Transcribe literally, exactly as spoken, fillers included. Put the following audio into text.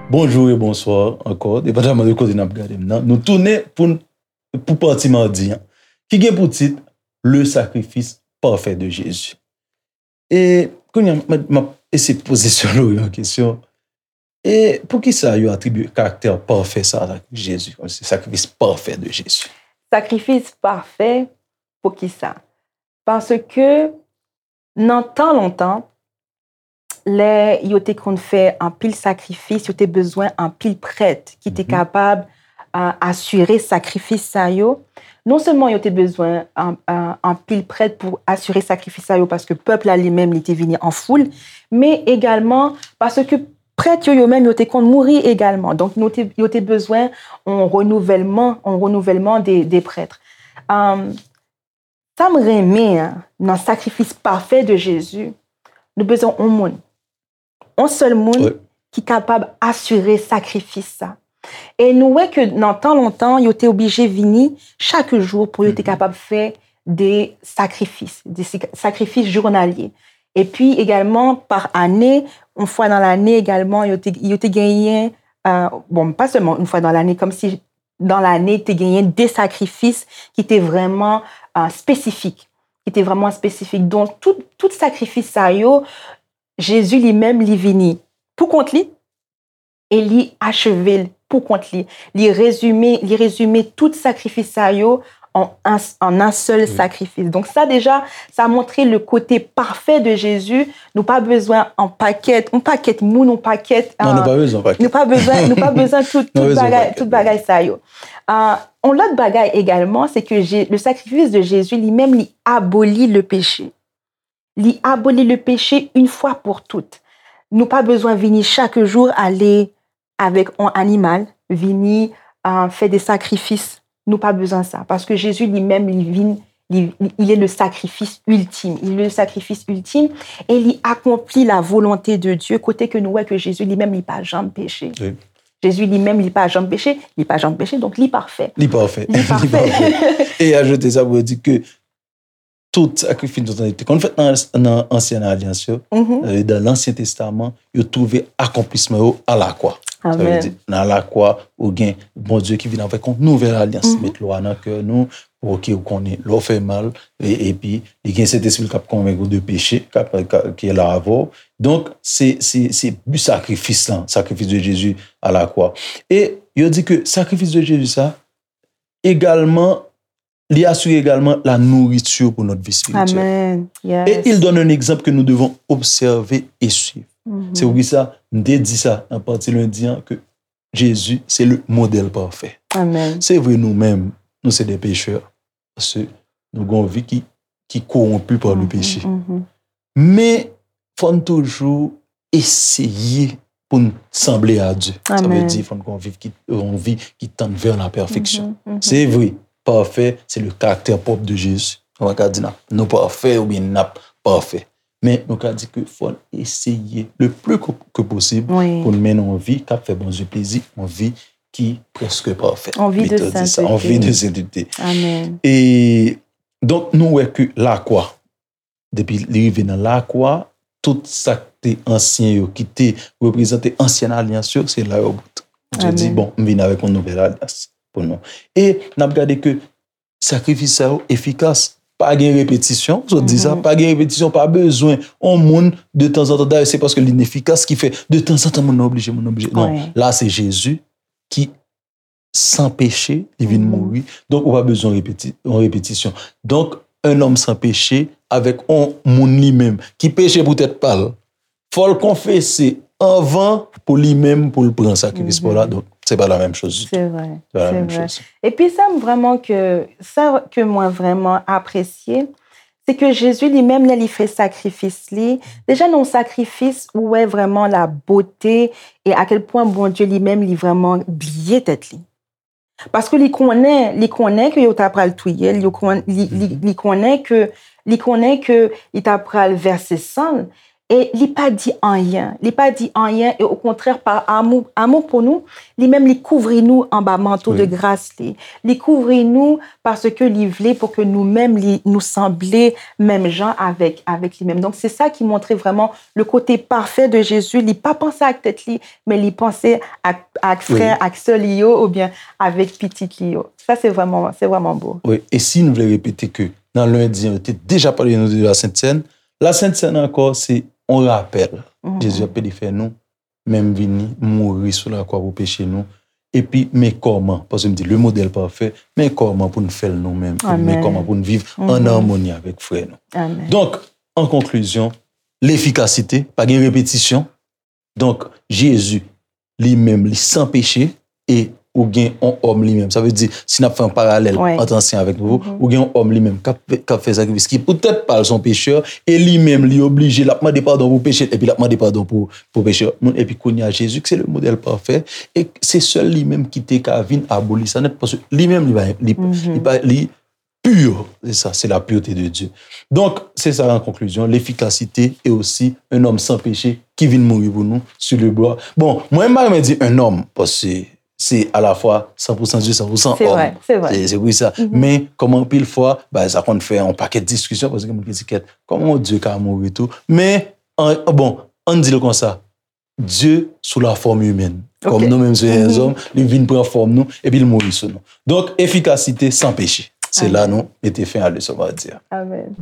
Bonjou e bonswa ankò, depandaman de kote n ap gade m nan. Nou tounen pou, pou pati madi an, ki gen pou tit Le sacrifice parfait de Jésus. E kounye a, m, m ap eseye poze Sè Lori yon kesyon. E poukisa yo atribye karaktè pafè sa a Jezi, kòmsi sakrifis pafè de Jezi? Sakrifis pafè, poukisa? Paske nan tan lontan, lè yo te konn fè anpil sakrifis, yo te bezwen anpil prèt ki te kapab uh, asire sakrifis sa yo. Non sèlman yo te bezwen anpil prèt pou asire sakrifis sa yo, paske pèp la li menm li te vini an foul, men egalman paske prèt yo, yo menm, yo te konn mouri egalman. Donk, yo te, yo te bezwen yon renouvèlman, yon renouvèlman de, de prèt. Um, sa m renmen nan sakrifis pafè de Jezi, nou bezwen yon moun. Yon sèl moun ki kapab asire sakrifis sa. E nou wè ke nan tan lontan, yo te oblije vini chak jou pou yo te kapab fè de sakrifis, de sakrifis jounalye. Epi egalman, pa ane, yon fwa nan lane egalman, yo te, yo te genyen, uh, bon, pa sèlman yon fwa nan lane, kòmsi nan lane, te genyen de sakrifis ki te vrèman uh, espesifik. Ki te vrèman espesifik. Donk, tout, tout sakrifis sa yo, Jezi li menm, li vini pou kont li, e li acheve l pou kont li. Li rezime, li rezime tout sakrifis sa yo an, an, an yon sèl sakrifis. Donk sa deja, sa montre le kote pafè de Jezi. Nou pa bezwen an pakèt, yon pakèt moun, yon pakèt. Non, nou pa bezwen pakèt. Nou pa bezwen, nou pa bezwen tout, tout bagay, tout bagay sa yo. Uh, yon lòt bagay egalman, se ke le sakrifis de Jezi li menm, li aboli le peche. Li aboli le peche une fois pour toutes. Nou pa bezwen vini chak jou ale avèk yon animal, vini uh, fè de sakrifis. Nou pa bezwen sa. Paske Jezi li menm, li vin, li, il est le sacrifice ultime. Il est le sacrifice ultime et li akonpli la volonté de Dieu, kote ke nou wè ke Jezi li menm, li pa janm peche. Oui. Jezi li menm, li pa janm peche, li pa janm peche, donk li pafè. Li pafè. Li pafè. E ajoute sa pou yo di ke tout sakrifis nou te konn fèt nan, nan ansyen alyans yo, dan lansyen testaman, yo twouve akonplisman yo alakwa. Sa vle di, nan alakwa, ou gen Bondye ki vin avèk yon nouvèl alyans, met lwa nan kè nou, pou ke ou konnen lè w fè mal, epi li gen Sentespri l k ap konvenk ou de peche, k ap, ki la avè w. Donk, se, se, se bi sakrifis lan, sacrifice de Jésus à la croix. E yo di ke sakrifis de Jezi sa, egalman, li asire egalman la nourriture pour notre vie spirituelle. Amen. Et il donne un exemple que nous devons observer et suivre. C'est pour ça, m te di sa nan pati lendi an, ke Jezi se le modèl pafè. Amen. Se vre nou menm, nou se de pechè. Paske nou gen yon vi ki, ki kowonpi pa le peche. Men, fò n toujou eseye pou n sanble a Dye. Sa vle di, fò n gen yon vi ki, yon vi ki tann vè la pèfeksyon. Se vre, pafè, se le karaktè pwòp de Jezi. Nou pa ka di n ap, nou pafè oubyen n ap pafè. Men nou ka di ke fò n eseye le plus que, que possible pou n mennen yon vi k ap fè Bondye plezi, yon vi ki prèske pafè. Yon vi de sentete. Yon vi de sentete. Amen. E donk, nou wè ke lakwa, depi li rive nan lakwa, tout sa k te ansyen yo, ki te reprezante ansyen alyans yo, se la yo bout. Bondye di, bon, m vin avèk yon nouvèl alyans pou nou. E n ap gade ke sakrifis sa yo efikas. Pa gen repetisyon, sot di sa, pa gen repetisyon, pa bezwen yon moun de tanzantan. Dayè, se paske li efikas ki fè de tanzantan moun nan oblije, moun nan oblije. Non, la se Jezi ki san peche, li vin mouri. Donk, ou pa bezwen repeti, yon repetisyon. Donk, un homme sans péché, avèk yon moun li menm ki peche poutèt pa l, fò l konfese anvan pou li menm, pou l pran sakrifis pa w la. Donk, se pa la menm choz ditou. Se vre, se vre. Epi sa m vrèman ke, sa ke mwen vrèman apresye, se ke Jezi li menm, lè li fè sakrifis li, deja nan yon sakrifis, ou wè vrèman la bote e a kèl pwen Bondye li menm, li vrèman bliye tèt li. Paske li konnen, li konnen ke yo ta pral touye l, yo konn, li, li, li konnen ke, li konnen ke li ta pral vèse san l. E li pa di anyen. Li pa di anyen, e okontrè, pa amou, amou pou nou, li menm li kouvri nou anba manto de gras li. Li kouvri nou paske li vle pou ke nou menm, li, nou sanble menm jan avèk, avèk li menm. Donk, se sa ki montre vrèman le kote pafè de Jezi. Li pa panse ak tèt li, men li panse ak, ak frè, ak sè li yo, oubyen avèk pitit li yo. Sa, se vrèman, se vrèman bo. Wi, e si nou vle repete ke nan lendi an, yo te deja pale nou de la Sent Sèn, la Sent Sèn ankò, se yon rapèl. Jezi ap pede fè nou, men m vini, m mouri sou lakwa pou peche nou. Epi, men kòman, paske m di, le modèl pafè, men kòman pou n fè l nou menm. Epi, men kòman pou n viv an amoni avèk frè nou. Donk, an konklizyon, lefikasite, pa gen repetisyon. Donk, Jezi, li menm, li san peche, e ou gen yon òm li menm. Sa vle di, si n ap fè yon paralèl ant ansyen avèk nouvo, ou gen yon òm li menm k ap, k ap fè sakrifis, ki poutèt pa l se yon pechè, e li menm, li oblije, l ap mande padon pou peche l, epi l ap mande padon pou, pou pechè moun. Epi kounye a, Jezi, ki se le modèl pafè, e se sèl li menm ki te ka vin aboli sa nèt, paske li menm, li pa, li, li pa, li pur. Se sa, se la pureté de Dieu. Donk, se sa an konklizyon, lefikasite e osi un homme sans péché ki vin mouri pou nou sur le bois. Bon, mwen, m pa renmen di un homme, paske se alafwa san pou san Dye, san pou san òm. Se vre, se vre. Se, se pou sa. Men, kòm anpil fwa, ba, sa konn fè yon pakèt diskisyon, paske gen moun ki di, kèt, kòman yon Dye ka mouri tou? Men, an, bon, ann di l konsa, Dye sou la fòm imèn. Kòm nou menm se lèzòm, li vin pran fòm nou, epi l mouri sou nou. Donk, efikasite san peche. Se la nou mete fen a leson madi a. Amèn.